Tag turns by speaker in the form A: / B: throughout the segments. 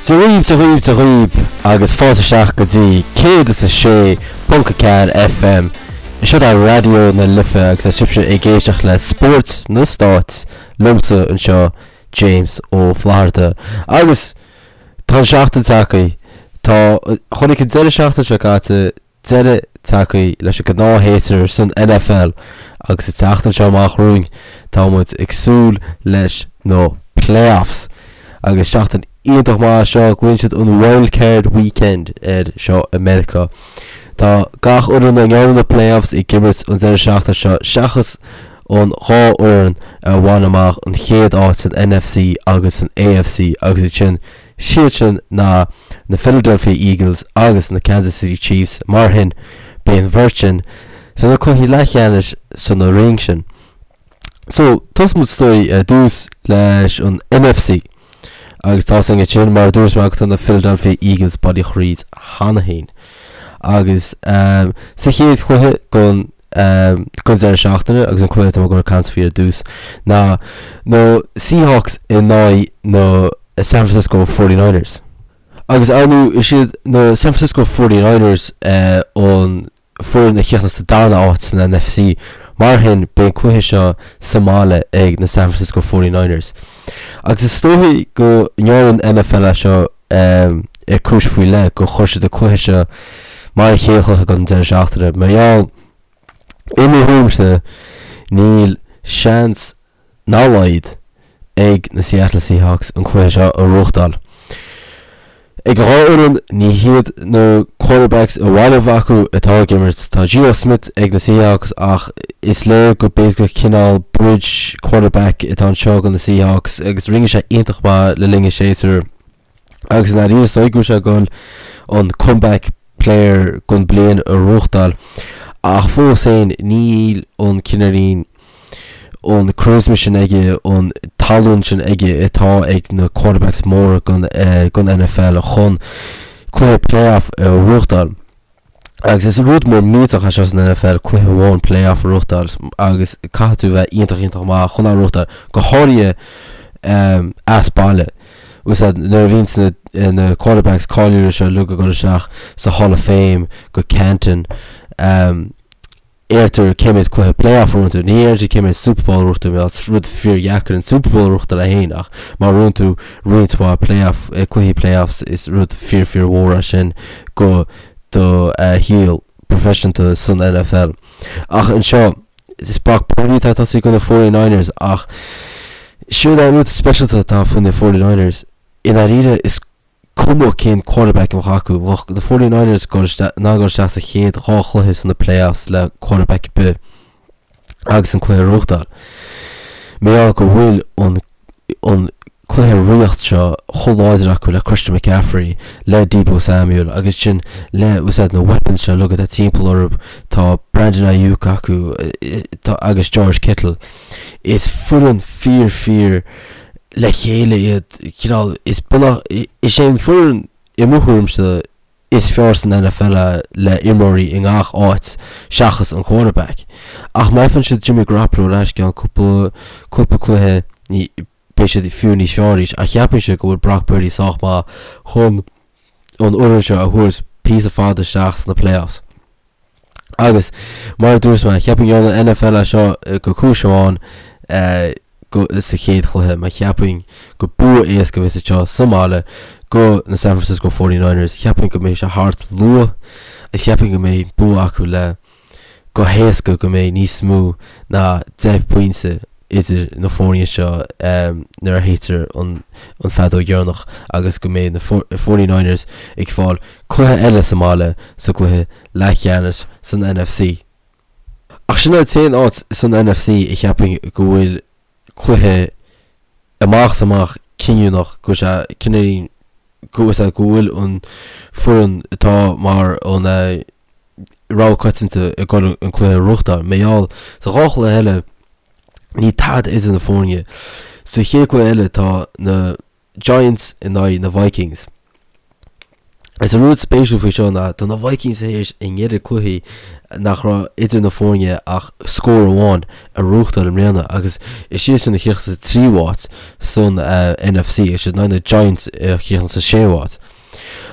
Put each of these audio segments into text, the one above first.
A: Dia dhaoibh, Dia dhaoibh, Dia dhaoibh agus fáilte isteach go dtí 106.4 FM. Seo é Raidió na Life agus tá sibhse ag éisteacht le Spórt na Stáit liomsa anseo James Ó Flatharta. Agus tá an seachtain tagtha. Tá, chonaic an deireadh seachtaine seo caite deireadh tagtha leis an gnáthshéasúr san NFL agus an tseachtain seo amach romhainn tá muid ag súil leis na playoffs agus seachtain iontach maith seo, glaonn siad an Wild Card Weekend air seo i Meiriceá. Tá gach fhoireann a ngearrann na playoffs ag imirt an deireadh seachtaine seo seachas an dhá fhoireann a bhain amach an chéad áit san NFC agus san AFC agus iad sin Siad sin ná na Philadelphia Eagles agus na Kansas City Chiefs, mar sin beidh an bheirt sin sna cluichí leathcheannais sna roinn sin. So, tosóidh muid is dóigh ar dtús leis an NFC agus tá sin ansin mar a dúirt mé tá na Philadelphia Eagles bailithe thríd cheana féin. Agus sa chéad chluiche den den deireadh seachtaine agus an cluiche atá mé ag dul ag caint faoi ar dtús ná na Seahawks in aghaidh na San Francisco 49ers. Agus ar ndóigh is iad na San Francisco 49ers an foireann a chríochnaigh sa darna áit san NFC, mar shin beidh an cluiche seo sa mbaile ag na San Francisco 49ers. Agus is dóichí go ndearna an NFL é seo ar cúis faoi leith, gur chuir siad an cluiche seo mar an chéad chluiche den deireadh seachtaine, mar gheall, i mo thuairimse, níl seans dá laghad ag na Seattle Seahawks an cluiche seo a bhuachtáil. Ag an dhá fhoireann, ní hiad na quarterbacks ba mhaith leo acu atá ag imirt. Tá Geno Smith ag na Seahawks ach is léir go basically cineál bridge quarterback atá anseo do na Seahawks agus rinne sé iontach maith le linn an séasúir agus i ndáiríre is dóigh go bhfuil sé ag dul an comeback player don bliain a bhuachtáil ach fós féin níl an cineáilín an charisma sin aige, an tallann sin aige atá ag na quarterbacks móra den NFL chun cluiche playoff a bhuachtáil. Agus is rud mór millteach é seo san NFL, cluiche amháin playoff a bhuachtáil agus caithfidh tú bheith iontach iontach maith chun é a bhuachtáil, go háirithe as baile. Agus nuair a bhíonn na quarterbacks cáiliúla seo uilig ag dul isteach sa Hall of Fame go Canton, Deirtear cé mhéad cluiche playoff a bhuann tú. Ní deirtear cé mhéad Super Bowl a bhuann tú, mar is rud fíordheacair an Super Bowl a bhuachtáil é féin ach má bhuann tú roinnt mhaith playoff, cluichí playoffs is rud fíor fíor mhór é sin go do shaol proifisiúnta san NFL. Ach anseo is Brock Purdy atá ag tosaí do na 49ers ach siúd é an rud speisialta atá faoi na 49ers i ndáiríre is cuma cén quarterback a bheadh acu, bheadh na 49ers in ann dul isteach sa chéad dhá chluiche sna playoffs le quarterback ar bith agus an cluiche a bhuachtáil. Mar gheall go bhfuil an an cluiche ríocht seo chomh láidir acu le Christian McCaffrey, le Deebo Samuel agus sin le úsáid na weapons seo uilig atá timpeall orthu, tá Brandon Aiyuk acu agus George Kittle. Is foireann fíor fíor le chéile iad, cineál, is bunach, is é an foireann i mo thuairimse is fearr san NFL é le imreoirí i ngach áit seachas an quarterback. Ach má fhaigheann siad Jimmy Garoppolo ar ais i gceann cúpla, cúpla cluiche ní, beidh siad fiú níos fearr arís. Ach cheapfainnse go bhfuil Brock Purdy sách maith chun an fhoireann seo a thabhairt píosa fada isteach sna playoffs. Agus, mar a dúirt mé, cheapfainn go ndearna an NFL é seo go cúis amháin sa chéad chluiche, mar cheapfainn go bua éasca a bheas anseo sa mbaile go na San Francisco 49ers. Cheapfainn go mbeidh sé thart luath agus cheapfainn go mbeidh bua acu le go héasca go mbeidh níos mó ná 10 bpointe idir na foirne seo nuair a shéidtear an feadóg dheireanach agus go mbeidh na 49ers ag fáil cluiche eile sa mbaile sa gcluiche leathcheannais san NFC. Ach sin é an t-aon áit san NFC a cheapfainn go bhfuil cluiche amach is amach cinniúnach, go bhfuil sé cinniúnach go bhfuil an foireann atá mar an rogha coitianta ag dul an cluiche a bhuachtáil. Mar gheall sa dhá chluiche eile níl tada idir na foirne. Sa chéad chluiche eile tá na Giants in aghaidh na Vikings. Is an rud spéisiúil faoi seo ná tá na Vikings tar éis a n-oiread cluichí nach raibh idir na foirne ach scór amháin a ghnóthachtáil i mbliana agus is iadsan a chríochnaigh sa tríú háit san NFC agus siad in aghaidh na Giants a chríochnaigh sa séú háit.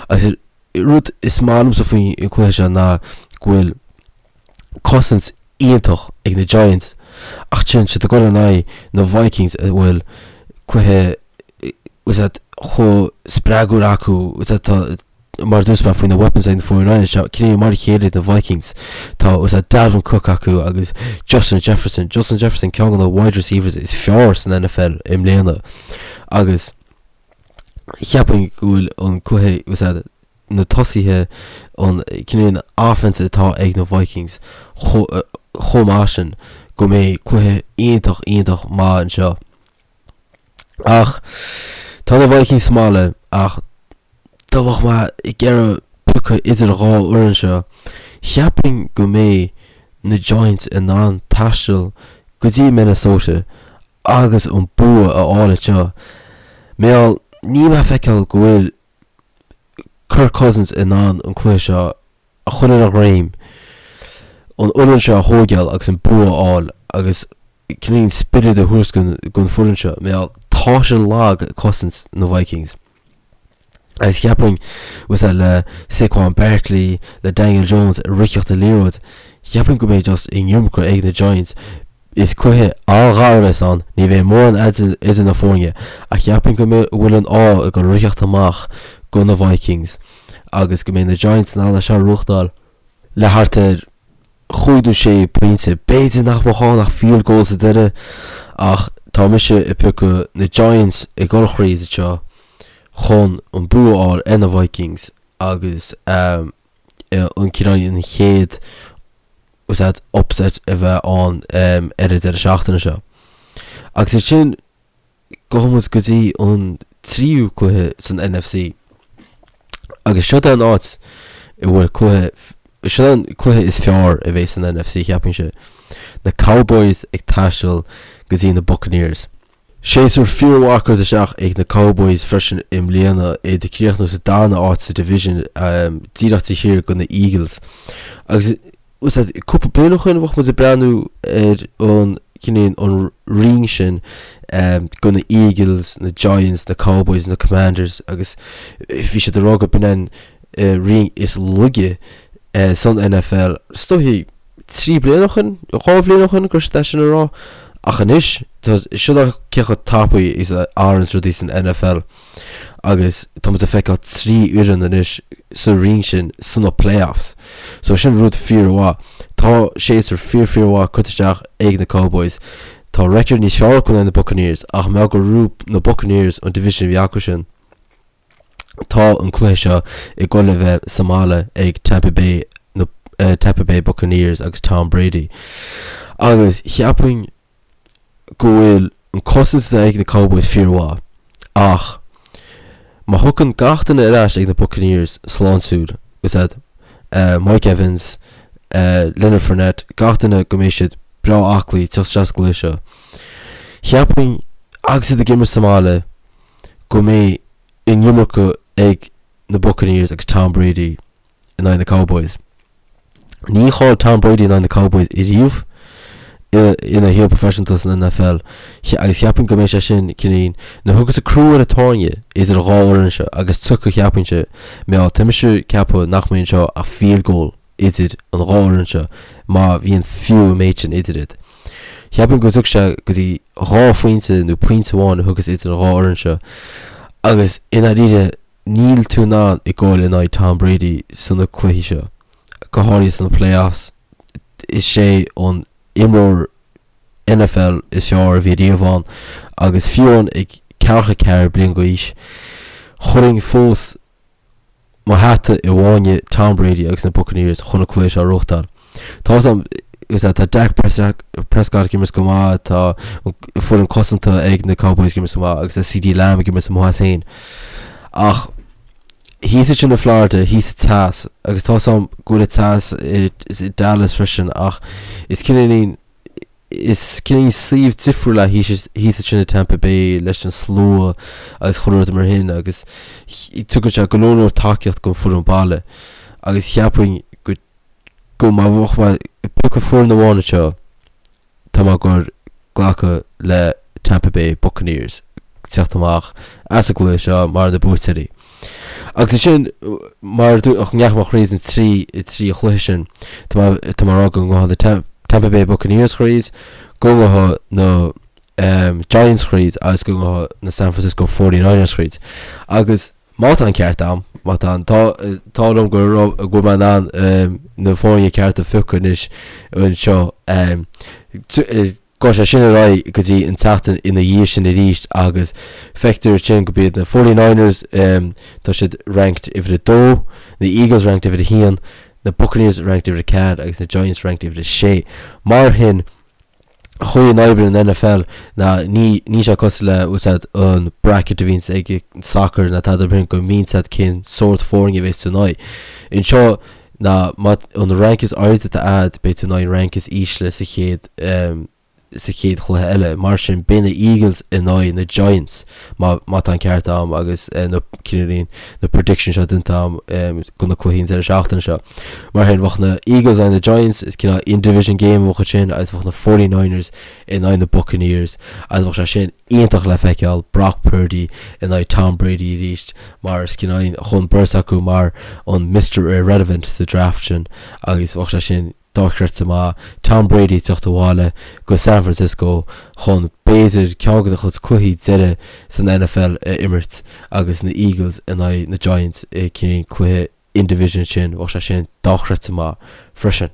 A: Agus an rud is maith liomsa faoin cluiche seo ná go bhfuil cosaint iontach ag na Giants ach téann siad ag dul in aghaidh na Vikings a bhfuil cluiche is ea chomh spreagúil acu is ea tá mar a dúirt mé faoi na weapons ag na 49ers seo cineál mar a chéile na Vikings tá is ea Dalvin Cook acu agus Justin Jefferson Justin Jefferson ceann de na wide receivers is fearr san NFL i mbliana agus cheapfainn go bhfuil an cluiche is ea na tosaithe an cineál offense atá ag na Vikings chomh maith sin go mbeidh cluiche iontach iontach maith anseo. Ach tá na Vikings sa mbaile ach dá mbeadh mé ag iarraidh piocadh idir dhá fhoireann seo, cheapfainn go mbeidh na Giants in ann taisteal go dtí Minnesota agus an bua a fháil anseo. Mar gheall níl mé ag feiceáil go bhfuil Kirk Cousins in ann an cluiche seo a chur ar a dhroim, an fhoireann seo a thóigeáil agus an bua a fháil agus cineál spiorad a thabhairt don foireann seo. Mar gheall tá sé lag cosaint na Vikings. Agus cheapfainn bhfuil a le Saquon Barkley, le Daniel Jones ag ritheacht an liathróid, cheapfainn go mbeidh just an iomarca ag na Giants. Is cluiche an-ghar a bheas ann, ní bheidh mórán idir na foirne, ach cheapfainn go bhfuil an ádh ag dul ritheacht amach go na Vikings agus go mbeidh na Giants in ann é seo a ghnóthachtáil le thart ar chúig nó sé pointe. B'fhéidir nach mbeadh ann ach field goal sa deireadh ach tá mise ag piocadh na Giants ag dul thríd anseo chun an bua a fháil ar na Vikings agus an cineál an chéad is upset a bheith ann ar an deireadh seachtaine seo. Agus ansin gabhfaidh muid go dtí an tríú cluiche san NFC. Agus seo é an áit a bhfuil cluiche, seo é an cluiche is fearr a bheidh san NFC cheapfainnse. Na Cowboys ag taisteal go dtí na Buccaneers. Séasúr fíormhaith curtha isteach ag na Cowboys freisin i mbliana, iad ag críochnú sa darna áit sa division, díreach taobh thiar de na Eagles. Agus cúpla bliain ó shin bheadh muid ag breathnú ar an cineál an roinn sin de na Eagles, na Giants, na Cowboys, na Commanders agus bhí siad ag rá go b'in an roinn is laige san NFL. Is dóichí 3 bliana ó shin, 2 bhliain ó shin go raibh siad é sin a rá. Ach anois, tá, seo é cé chomh tapaidh is a athraíonn rudaí san NFL agus tá muid ag feiceáil 3 fhoireann anois sa roinn sin sna playoffs. So sin rud fíormhaith. Tá séasúr fíor fíormhaith curtha isteach ag na Cowboys. Tá record níos fearr acu ná na Buccaneers ach mar gheall gur ghnóthaigh na Buccaneers an division a bhí acu sin. Tá an cluiche seo ag dul a bheith sa mbaile ag Tampa Bay, na Tampa Bay Buccaneers agus Tom Brady. Agus cheapfainn go bhfuil an cosaint atá ag na Cowboys fíormhaith ach má thiocfainn gach duine ar ais ag na Buccaneers sláintiúil, is ea Mike Evans, Leonard Fournette, gach duine go mbeidh siad breá aclaí teacht isteach sa gcluiche seo. Cheapfainn agus iad ag imirt sa mbaile go mbeidh an iomarca ag na Buccaneers agus Tom Brady in aghaidh na Cowboys. Níor chaill Tom Brady in aghaidh na Cowboys ariamh ina shaol proifisiúnta san NFL agus cheapfainn go mbeidh sé sin cineál nuair a thiocfas an crú ar an tairne idir an dhá fhoireann seo agus tiocfaidh cheapfainnse mar gheall tá mise ag ceapadh nach mbeidh anseo ach field goal idir an dhá fhoireann seo má bhíonn fiú an méid sin idir iad. Cheapfainn go dtiocfaidh sé go dtí 2 phointe nó pointe amháin a thiocfas idir an dhá fhoireann seo agus i ndáiríre níl tú in ann ag goil in aghaidh Tom Brady sna cluichí seo, go háirithe sna playoffs. Is é an imreoir NFL is fearr a bhí riamh ann agus fiú amháin ag 44 bliain d'aois, chuirfinn fós mo hata i bhfáinne Tom Brady agus na Buccaneers chun an cluiche seo a ghnóthachtáil. Tá 'fhios a'm, tá Dak Prescott ag imirt go maith, tá an foireann cosanta ag na Cowboys ag imirt go maith agus tá CeeDee Lamb ag imirt amuigh as féin. Ach thíos ansin i Florida, thíos sa teas, agus tá 'fhios a'm go bhfuil an teas i Dallas freisin ach is cineáilín. Is cineál suíomh difriúil é thíos ansin i Tampa Bay leis an slua agus chuile rud mar shin agus tugann sé go leor leor tacaíocht don foireann baile agus cheapfainn go go má bheadh mé ag piocadh foireann amháin anseo tá mé ag goil glacadh le Tampa Bay Buccaneers teacht amach as an gcluiche seo mar na buaiteoirí. Agus ansin, mar a dúirt, ndeachaigh mé thríd an 3 chluiche sin, tá mé tá mé ag rá go ngabhfaidh na Tampa Bay Buccaneers thríd, go ngabhfaidh na Giants thríd agus go ngabhfaidh na San Francisco 49ers thríd. Agus má tá an ceart a'm, má tá an t-ádh liom go raibh go bhfuil mé in ann na foirne cearta a phiocadh anois anseo, Gabhfaidh sé sin ar aghaidh go dtí an tseachtain ina dhiaidh sin arís agus feictear ansin go b'iad na Forty Niners, tá siad ranked uimhir a dó, na Eagles ranked uimhir a haon, na Buccaneers ranked uimhir a ceathair agus na Giants ranked uimhir a sé. Mar shin, an chaoi a n-oibríonn an NFL ná ní níl sé cosúil le úsáid an bracket a bhíonns ag soccer ná tada mar sin go mbíonn a fhios agat cén sórt foirne a bheas tú in aghaidh. Anseo, ná má an rank is airde atá a'd beidh tú in aghaidh an rank is ísle sa chéad sa chéad chluiche eile. Mar sin beidh na Eagles in aghaidh na Giants má má tá an ceart a'm agus na cineáilín na predictions seo déanta a'm do na cluichí an deireadh seachtaine seo. Mar sin bheadh na Eagles in aghaidh na Giants is cineál in-division game a bheadh ansin agus bheadh na 49ers in aghaidh na Buccaneers agus bheadh sé sin iontach le feiceáil Brock Purdy in aghaidh Tom Brady arís mar is cineál chun beirt acu mar an Mister Irrelevant sa draft sin agus bheadh sé sin dochreidte maith Tom Brady ag teacht abhaile go San Francisco chun b'fhéidir ceann de a chuid cluichí deiridh san NFL a imirt agus na Eagles in aghaidh na Giants i cineál cluiche in-division sin, bheadh sé sin dochreidte maith freisin.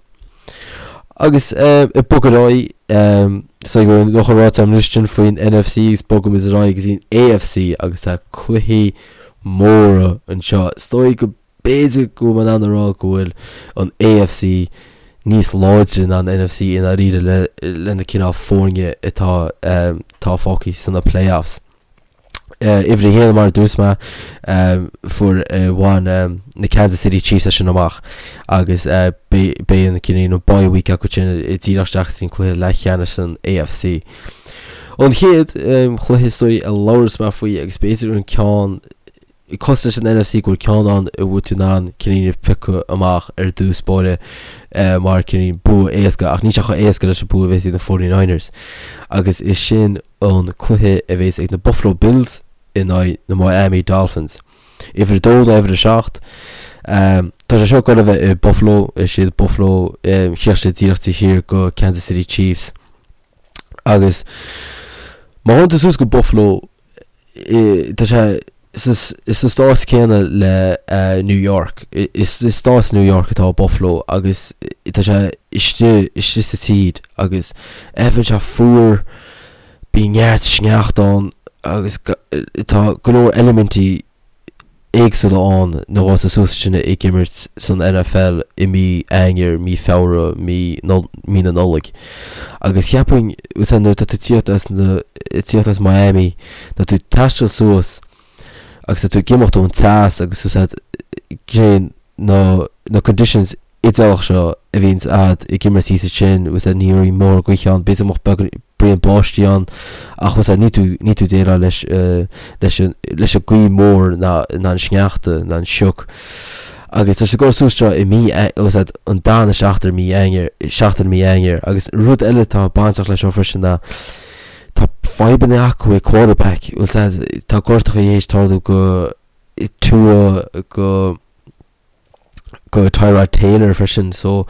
A: Agus ag bogadh ar aghaidh, so go bhfuil an ráite agam anois sin faoin NFC agus bogaimid ar aghaidh go dtí an AFC agus tá cluichí móra anseo. Is dóigh go b'fhéidir go bhfuil mé in ann a rá go bhfuil an AFC níos láidre ná an NFC i ndáiríre le le na cineál foirne atá atá fágtha sna playoffs. Uimhir a haon, mar a dúirt mé, fuair bhain na Kansas City Chiefs é sin amach agus beidh an cineál an bye week acu sin díreach isteach sa cluiche leathcheannais san AFC. An chéad chluiche is dóigh a labhras mé faoi agus b'fhéidir an ceann cosúil leis an NFC go bhfuil ceann ann a bhfuil tú in ann cineál piocadh amach ar dtús báire mar cineál bua éasca ach níl sé chomh éasca leis an bua a bheas ag na 49ers agus is sin an cluiche a bheas ag na Buffalo Bills in aghaidh na Miami Dolphins. Uimhir 2 nó uimhir 7. Tá sé seo ag goil a bheith i Buffalo, is iad Buffalo, chríoch siad díreach taobh thiar go Kansas City Chiefs. Agus má théann tú suas go Buffalo, tá sé sa stát céanna le New York. Is i stát New York atá Buffalo agus tá sé istigh istigh sa tír agus bíonn sé fuar, bíonn neart sneachta ann agus tá go leor eilimintí éagsúla ann nuair atá tú suas ansin ag imirt san NFL i mí Eanáir, mí Feabhra, mí mí na Nollag. Agus cheapfainn, nuair atá tú ag tíocht as na, ag tíocht as Miami, tá tú ag taisteal suas agus tá tú ag imeacht ón teas agus úsáid cén na na conditions idéalach seo a bhíonns a'd ag imirt thíos ansin, úsáid ní raibh mórán gaoithe ann, b'fhéidir go mbeadh braon báistí ann ach úsáid ní tú ní tú déileáil leis leis an leis an gaoth mór ná ná an sneachta ná an sioc. Agus tá sé ag dul suas seo i mí úsáid an darna seachtain mí Eanáir seachtain mí Eanáir agus rud eile atá bainteach leis seo freisin ná tá fadhbanna acu ag quarterback, úsáid tá gortacha théis tarlú go Tua go go Tyrod Taylor freisin so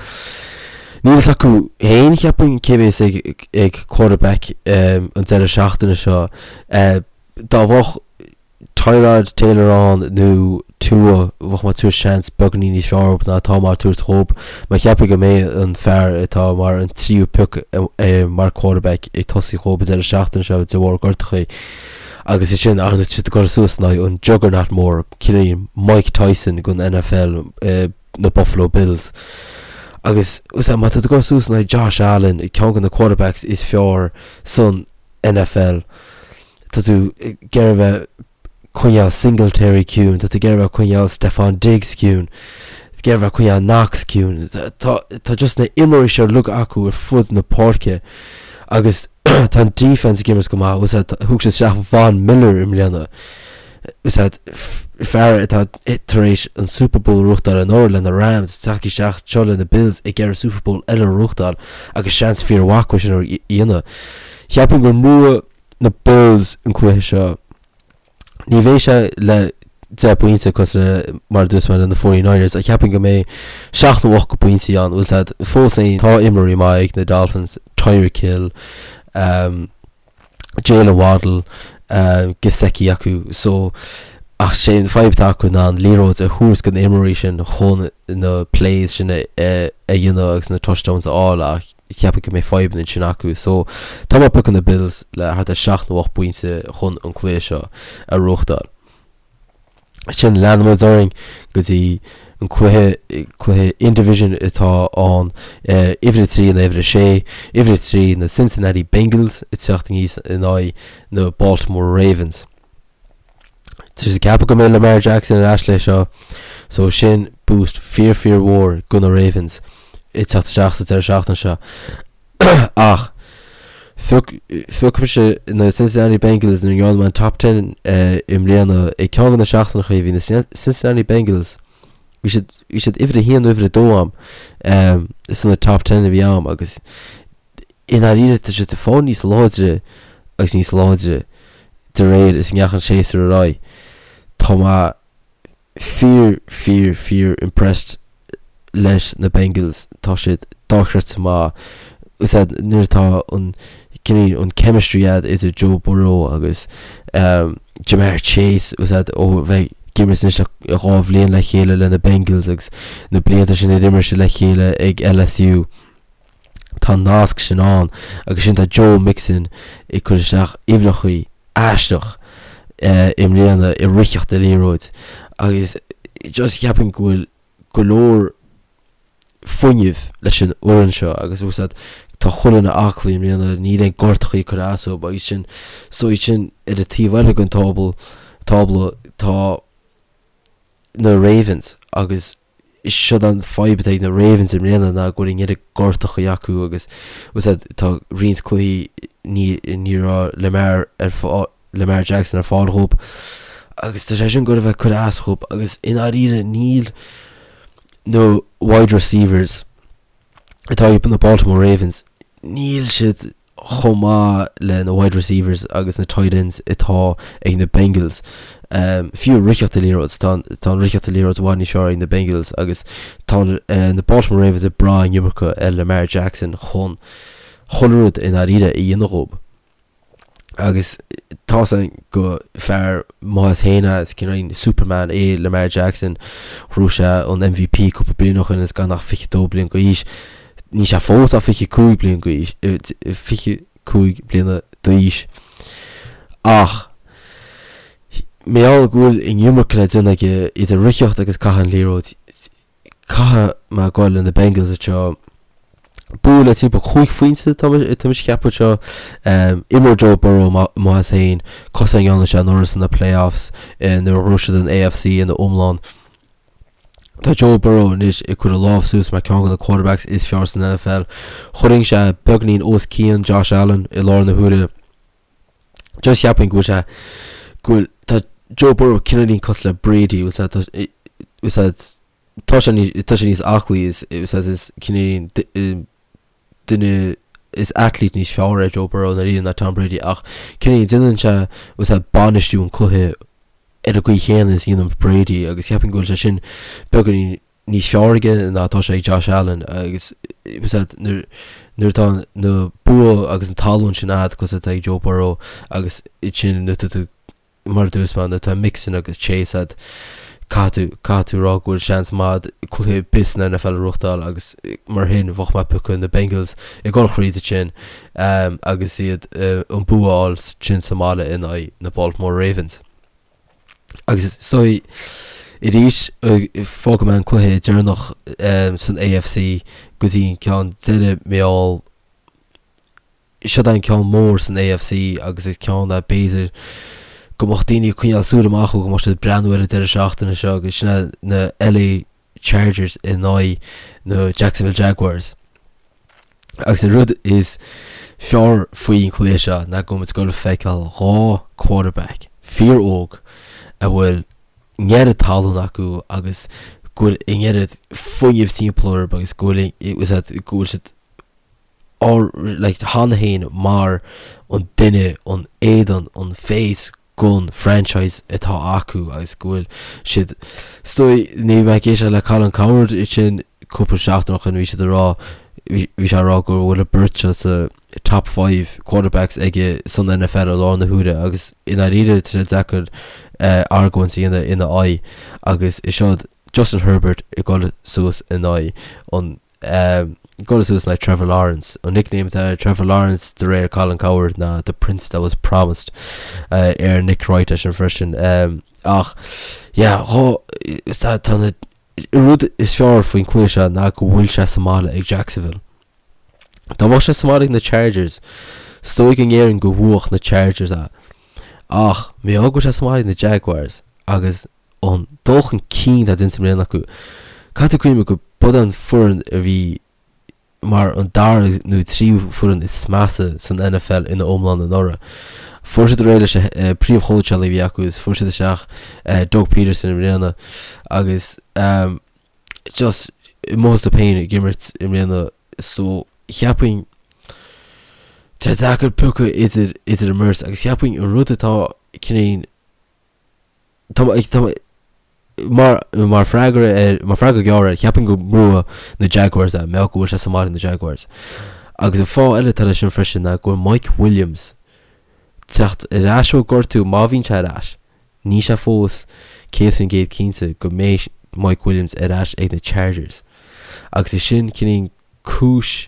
A: níl fhios acu féin cheapfainn cé bhéas ag ag quarterback um, an deireadh seachtaine seo. Uh, dá bheadh Tyrod Taylor ann nó Tua bheadh mé ag tabhairt seans beagáinín níos fearr ná atá mé ag tabhairt dhób. Mar cheapfainn go mbeidh an fear atá mar an tríú pioc mar quarterback ag tosaí dhób an deireadh seachtaine seo de bharr gortachaí. Agus é sin ar siad ag dul suas in aghaidh an juggernaut mór, cineál Mike Tyson den NFL, na Buffalo Bills. Agus má tá tú ag dul suas in aghaidh Josh Allen, ceann de na quarterbacks is fearr san NFL, tá tú ag iarraidh a bheith coinneáil Singletary ciúin, tá tú ag iarraidh a bheith coinneáil Stefon Diggs ciúin, ag iarraidh a bheith coinneáil Knox ciúin. Tá, tá just na imreoirí seo uilig acu ar fud na páirce. Agus tá an defense ag imirt go maith, bhfuil a fhios agat, thug siad isteach Von Miller i mbliana, bhfuil a fhios agat, fear atá tar éis an Super Bowl a ghnóthachtáil anuraidh le na Rams, teacht isteach anseo le na Bills ag iarraidh Super Bowl eile a ghnóthachtáil agus seans fíor-mhaith acu sin a dhéanamh. Cheapfainn go mbuafaidh na Bills an cluiche seo. Ní bheidh sé le 10 bpointe cosúil le mar a dúirt mé le na 49ers ach cheapfainn go mbeidh 7 nó 8 bpointí ann. Bhfuil a fhios agat, fós féin tá imreoirí maith ag na Dolphins, Tyreek Hill, um, Jaylen Waddle, um, Gesicki acu so ach sé an fadhb atá acu ná an liathróid a thabhairt do na imreoirí sin chun na plays sin a, a, a dhéanamh agus na touchdowns a fháil ach cheapfainn go mbeidh fadhbanna ansin acu. So, tá mé ag piocadh na Bills le thart ar 7 nó 8 bpointe chun an cluiche seo a ghnóthachtáil. Sin leanfaimid orainn go dtí an cluiche, cluiche in-division atá ann, uimhir 3 in uimhir 6, uimhir 3 na Cincinnati Bengals ag teacht aníos in aghaidh na Baltimore Ravens. Tá siad ag ceapadh go mbeidh Lamar Jackson ar ais le seo, so sin boost fíor fíor mhór do na Ravens ag teacht isteach sa deireadh seachtaine seo. Ach phioc mise na Cincinnati Bengals nuair a ndearna mé an top 10 i mbliana ag ceann de na seachtaineacha bhí na Cincinnati Bengals bhí siad bhí siad uimhir a haon nó uimhir a dó a'm sna top 10 a bhí a'm agus i ndáiríre tá siad ag fáil níos láidre agus níos láidre de réir is a ndeachaigh an séasúr ar aghaidh. Tá mé fíor, fíor, fíor impressed leis na Bengals. Tá siad dochreidte maith. Is ea nuair atá an cineál an chemistry a'd idir Joe Burrow agus Ja'Marr Chase is ea ó bheith ag imirt anois le dhá bhliain le chéile le na Bengals agus na blianta sin ar imir siad le chéile ag LSU. Tá an nasc sin ann agus sin tá Joe Mixon ag cur isteach uimhreachaí aisteach i mbliana i ritheacht an liathróid agus just cheapfainn go bhfuil go leor fuinnimh leis an fhoireann seo agus bhfuil a fhios agat tá chuile dhuine aclaí i mbliana níl aon gortachaí ag cur as dóibh agus sin so iad sin ar an taobh eile den tábla tábla tá na Ravens agus Siod an fadhb atá ag na Ravens i mbliana ná go bhfuil an oiread gortachaí acu agus bhfuil a fhios agat tá roinnt cluichí ní ní raibh Lamar ar fáil Lamar Jackson ar fáil dhóibh agus tá sé sin ag goil a bheith ag cur as dhóibh agus i ndáiríre níl na wide receivers atá ag na Baltimore Ravens níl siad chomh maith le na wide receivers agus na tight ends atá ag na Bengals. Fiú ritheacht an liathróid, tá tá an ritheacht an liathróid i bhfad níos fearr ag na Bengals agus tá na Baltimore Ravens ag brath an iomarca ar Lamar Jackson chun chuile rud i ndáiríre a dhéanamh dhóibh. Agus tá a fhios againn gur fear maith as féin é, is cineál Superman é Lamar Jackson. Ghnóthaigh sé an MVP cúpla bliain ó shin is gan ach 22 bliain d'aois. Níl sé fós ach 25 bliain d'aois, 25 bliana d'aois. Ach mar gheall go bhfuil an iomarca le déanamh aige idir ritheacht agus caitheamh an liathróid, caithfidh mé a ghoil le na Bengals anseo. Bua le timpeall 5 phointe tá mise ag ceapadh anseo. Imreoidh Joe Burrow maith as féin, cosúil le a ndearna sé anuraidh sna playoffs nuair a ghnóthaigh siad an AFC ina iomlán. Tá Joe Burrow anois ag cur a lámh suas mar ceann de na quarterbacks is fearr san NFL. Chuirfinn sé beagainín os cionn Josh Allen i láthair na huaire. Just cheapfainn go bhfuil sé go bhfuil tá Joe Burrow cineáilín cosúil le Brady bhfuil sé tá bhfuil sé tá sé níos tá sé níos aclaí is bhfuil sé is cineáilín duine is athlete níos fearr é Joe Burrow i ndáiríre ná Tom Brady ach cineáilín déanann sé bhfuil sé bainistiú an cluiche ar an gcaoi chéanna is a dhéanann Brady agus cheapfainn go bhfuil sé sin beagáinín níos fearr aige ná atá sé ag Josh Allen agus nuair nuair atá na bua agus an tallann sin a'd cosúil atá ag Joe Burrow agus sin nuair atá tú mar a dúirt mé nuair atá Mixon agus Chase a'd caithfidh tú caithfidh tú rá go bhfuil seans maith a'd cluiche ar bith san NFL a ghnóthachtáil agus mar sin bheadh mé ag piocadh na Bengals ag dul thríd ansin agus iad an bua a fháil sin sa mbaile in aghaidh na Baltimore Ravens. Agus so arís fágfaidh mé an cluiche deireanach san AFC go dtí an ceann deiridh mar gheall Siod é an ceann mór san AFC agus is ceann é b'fhéidir go mbeadh daoine ag coinneáil súil amach go mbeadh siad ag breathnú ar an deireadh seachtaine seo agus sin é na LA Chargers in aghaidh na Jacksonville Jaguars. Agus an rud is fearr faoin chluiche seo ná go bhfuil muid ag dul a feiceáil 2 quarterback fíor óg a bhfuil an oiread tallann acu agus go bhfuil an oiread fuinnimh timpeall orthu agus go bhfuil go bhfuil siad like cheana féin mar an duine an éadan an face gon franchise atá acu agus go bhfuil siad is dóigh ní bhí mé ag éisteacht le Colin Cowherd ansin cúpla seachtain ó shin bhí siad ag rá bhí sé ag rá go bhfuil an beirt seo sa top 5 quarterbacks aige san NFL i láthair na huaire agus i ndáiríre tá sé deacair argóint a dhéanamh ina aghaidh agus is seod Justin Herbert ag dul suas in aghaidh an Dul suas le Trevor Lawrence. An nickname atá ar Trevor Lawrence de réir Colin Cowherd ná The Prince That Was Promised ar Nick Wright eisean freisin. Ach yeah, tá na rud is fearr faoin cluiche seo ná go bhfuil sé sa mbaile ag Jacksonville. Dá mbeadh sé sa mbaile ag na Chargers, is dóigh go ndéarfainn go bhuafadh na Chargers é. Ach mar gheall go bhfuil sé sa mbaile ag na Jaguars agus an dul chun cinn atá déanta i mbliana acu. Caithfidh tú cuimhneamh go b'iod an foireann a bhí mar an dara nó tríú foireann is measa san NFL ina iomlán anuraidh. Fuair siad réidh leis an príomhchóitseálaí a bhí acu is fuair siad isteach Doug Pederson i mbliana agus just amuigh astu féin ag imirt i mbliana so cheapfainn tá sé deacair piocadh idir idir an mbeirt agus cheapfainn an rud atá cineál Tá tá mar mar freagra ar mar freagra gearr air, cheapfainn go mbuafadh na Jaguars é, mar go bhfuil sé sa mbaile ag na Jaguars. Agus an fáth eile atá leis sin freisin ná go bhfuil Mike Williams teacht ar ais ó gortú má bhíonn sé ar ais. Níl sé fós 100% cinnte go mbeidh Mike Williams ar ais ag na Chargers. Agus is sin cineál cúis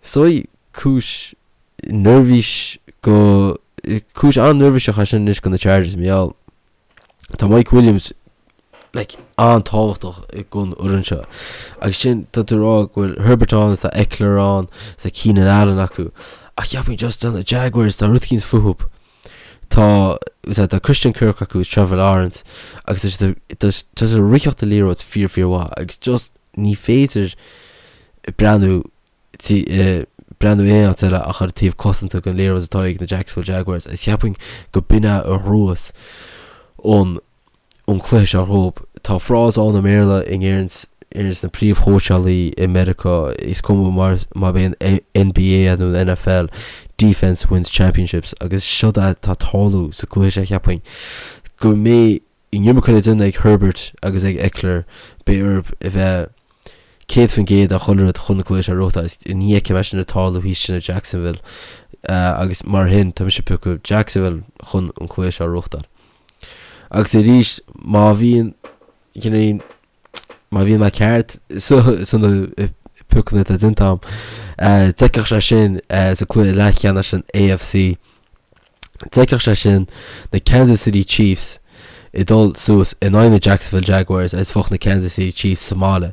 A: is dóigh cúis neirbhís go cúis an-neirbhíseach é sin anois go na Chargers mar gheall tá Mike Williams like an-tábhachtach gon fhoireann seo agus sin tá tú ag rá go bhfuil Herbert ann tá Ekeler ann tá Keenan Allen acu ach cheapfainn just tá na Jaguars tá rud eicínt fúthu tá tá Christian Kirk acu Trevor Lawrence agus tá siad tá siad ag ritheacht an liathróid fíor fíor mhaith agus just ní féidir breathnú breathnú aon áit eile ach ar an taobh cosanta den liathróid atá ag na Jacksonville Jaguars agus cheapfainn go b'in é a ghnóthós an an cluiche seo dhóibh. Tá frása ann i mBéarla a ndeireanns na príomhchóitseálaí i Meiriceá, is cuma mar má b'é an NBA é nó an NFL, defence wins championships agus seod é atá ag tarlú sa gcluiche seo cheapfainn go mbeidh an iomarca le déanamh ag Herbert agus ag Ekeler, beidh orthu a bheith 100% ar chuile rud chun an cluiche seo a ghnóthachtáil agus ní fheicim é sin ag tarlú thíos sin i Jacksonville agus mar shin tá mise ag piocadh Jacksonville chun an cluiche seo a ghnóthachtáil. Agus arís má bhíonn cineál má bhíonn mé ceart sna piocanna atá déanta agam d'fheicfeadh sé sin sa cluiche leathcheannais san AFC D'fheicfeadh sé sin na Kansas City Chiefs ag dul suas in aghaidh na Jacksonville Jaguars agus bheadh na Kansas City Chiefs sa mbaile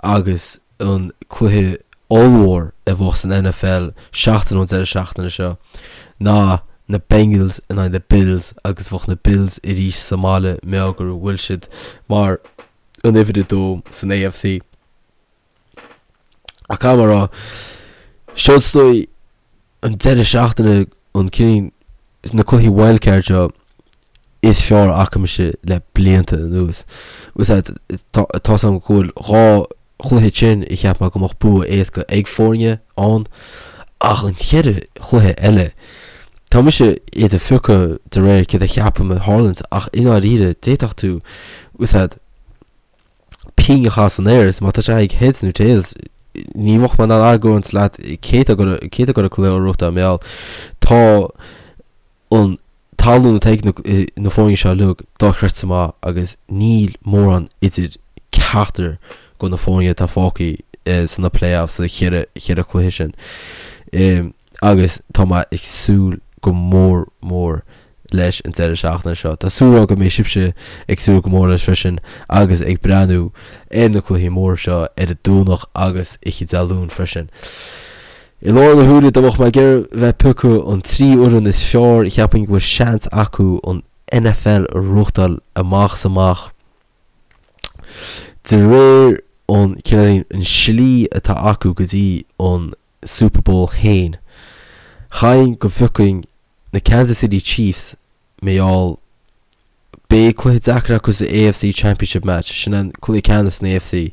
A: agus an cluiche ollmhór a bheadh san NFL seachtain ón deireadh seachtaine seo ná na Bengals in aghaidh na Bills agus bheadh na Bills arís sa mbaile mar go bhfuil siad mar an uimhir 2 san AFC. Ach caithfidh mé a rá, seo is dóigh an deireadh seachtaine an cineál na cluichí wildcard seo is fearr a fhaca mise le blianta anuas. Tá 's agam go bhfuil 2 chluiche sin a cheap mé go mbeadh bua éasca ag foirne ann ach an cheithre chluiche eile tá mise iad a phiocadh de réir céard a cheapaim a tharlaíonns ach i ndáiríre d'fhéadfadh tú pingin a chaitheamh san aer is má tá sé ag heads nó tails ní bheadh mé in ann argóint leat cé atá ag cé atá ag dul an cluiche a ghnóthachtáil mar gheall tá an tallann atá ag na foirne seo uilig dochreidte maith agus níl mórán idir ceachtar de na foirne atá fágtha sna playoffs sa cheithre cheithre chluiche sin. Agus tá mé ag súil go mór mór leis an deireadh seachtaine seo. Tá súil agam go mbeidh sibhse ag súil go mór leis freisin agus ag breathnú ar na cluichí móra seo ar an Domhnach agus oíche Dé Luain freisin. I láthair na huaire dá mbeadh mé ag iarraidh bheith ag piocadh an 3 fhoireann is fearr cheapfainn go bhfuil seans acu an NFL a ghnóthachtáil amach is amach. De réir an cineál an slí atá acu go dtí an. Super Bowl féin. Chaithfinn go bhfiocfainn na Kansas City Chiefs mar gheall beidh cluiche deacair acu sa AFC Championship match, sin an cluiche ceannais san AFC.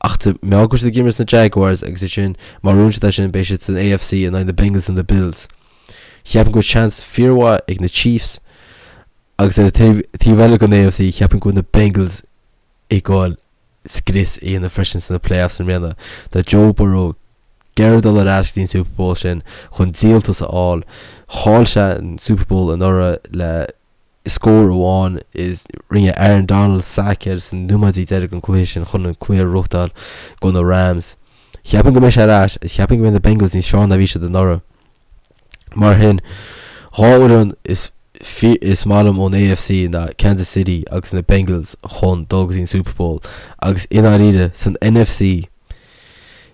A: Ach tá mar gheall go bhfuil siad ag imirt na Jaguars agus ansin má bhuann siad é sin beidh siad san AFC in aghaidh na Bengals nó na Bills. Cheapfainn go bhfuil seans fíormhaith ag na Chiefs agus ar an taobh eile den AFC cheapfainn go bhfuil na Bengals ag goil scrios a dhéanamh freisin sna playoffs i mbliana. Tá Joe Burrow ag iarraidh dul ar ais go dtí an Super Bowl sin chun díoltas a fháil. Chaill sé an Super Bowl anuraidh le scór amháin is rinne Aaron Donald sack air sna nóiméidí deiridh den chluiche sin chun an cluiche a ghnóthachtáil do na Rams. Cheapfainn go mbeidh sé ar ais agus cheapfainn go mbeidh na Bengals níos fearr ná bhí siad anuraidh. Mar sin, 2 fhoireann is is maith liom ón AFC ná Kansas City agus na Bengals chun dul go dtí an Super Bowl agus i ndáiríre san NFC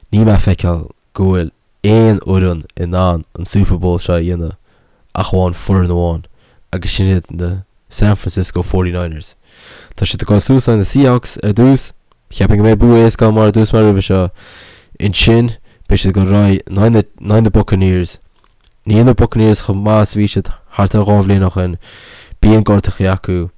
A: níl mé ag feiceáil go bhfuil aon fhoireann in ann an Super Bowl seo a dhéanamh ach amháin foireann amháin agus sin iad na San Francisco 49ers. Tá siad ag dul suas in aghaidh na Seahawks ar dtús, cheapfainn go mbeidh bua éasca acu mar a dúirt mé roimhe seo. Ansin beidh siad ag dul ar aghaidh in aghaidh na in aghaidh na Buccaneers. Níl na Buccaneers chomh maith is a bhí siad thart ar 2 bhliain ó shin. Bíonn gortachaí acu.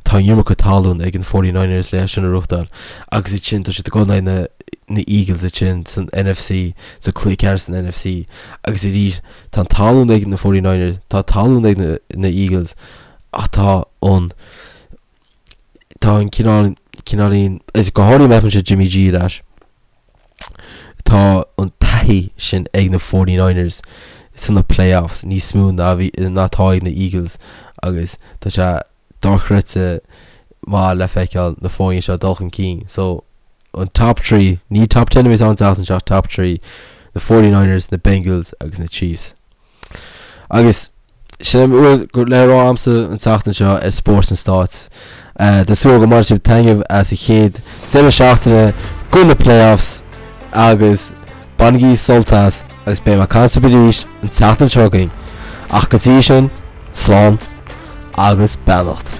A: Tá an iomarca talún ag an 49ers le sin a ghnóthachtáil. Agus ansin tá siad ag dul in aghaidh na na Eagles ansin san NFC, sa cluiche ceannais san NFC. Agus arís tá an talún ag na 49ers, tá talún ag na na Eagles ach tá an tá an cineál cineáilín is go háirithe má fhaigheann siad Jimmy G ar ais. Tá an taithí sin ag na 49ers sna playoffs níos mó ná bhí ná atá ag na Eagles agus tá sé dochreidte maith le feiceáil na foirne seo dul chun cinn. So an top 3, ní top 10 a bheas ann an tseachtain seo, top 3, na 49ers, na Bengals agus na Chiefs. Agus sin a bhfuil le rá agamsa an tseachtain seo ar Spórt na Stáit. Tá súil go mbainfidh sibh taitneamh as an chéad deireadh seachtaine de na playoffs agus bainigí sult as agus beidh mé ag caint libh arís an tseachtain seo chugainn. Ach go dtí sin, slán agus beannacht.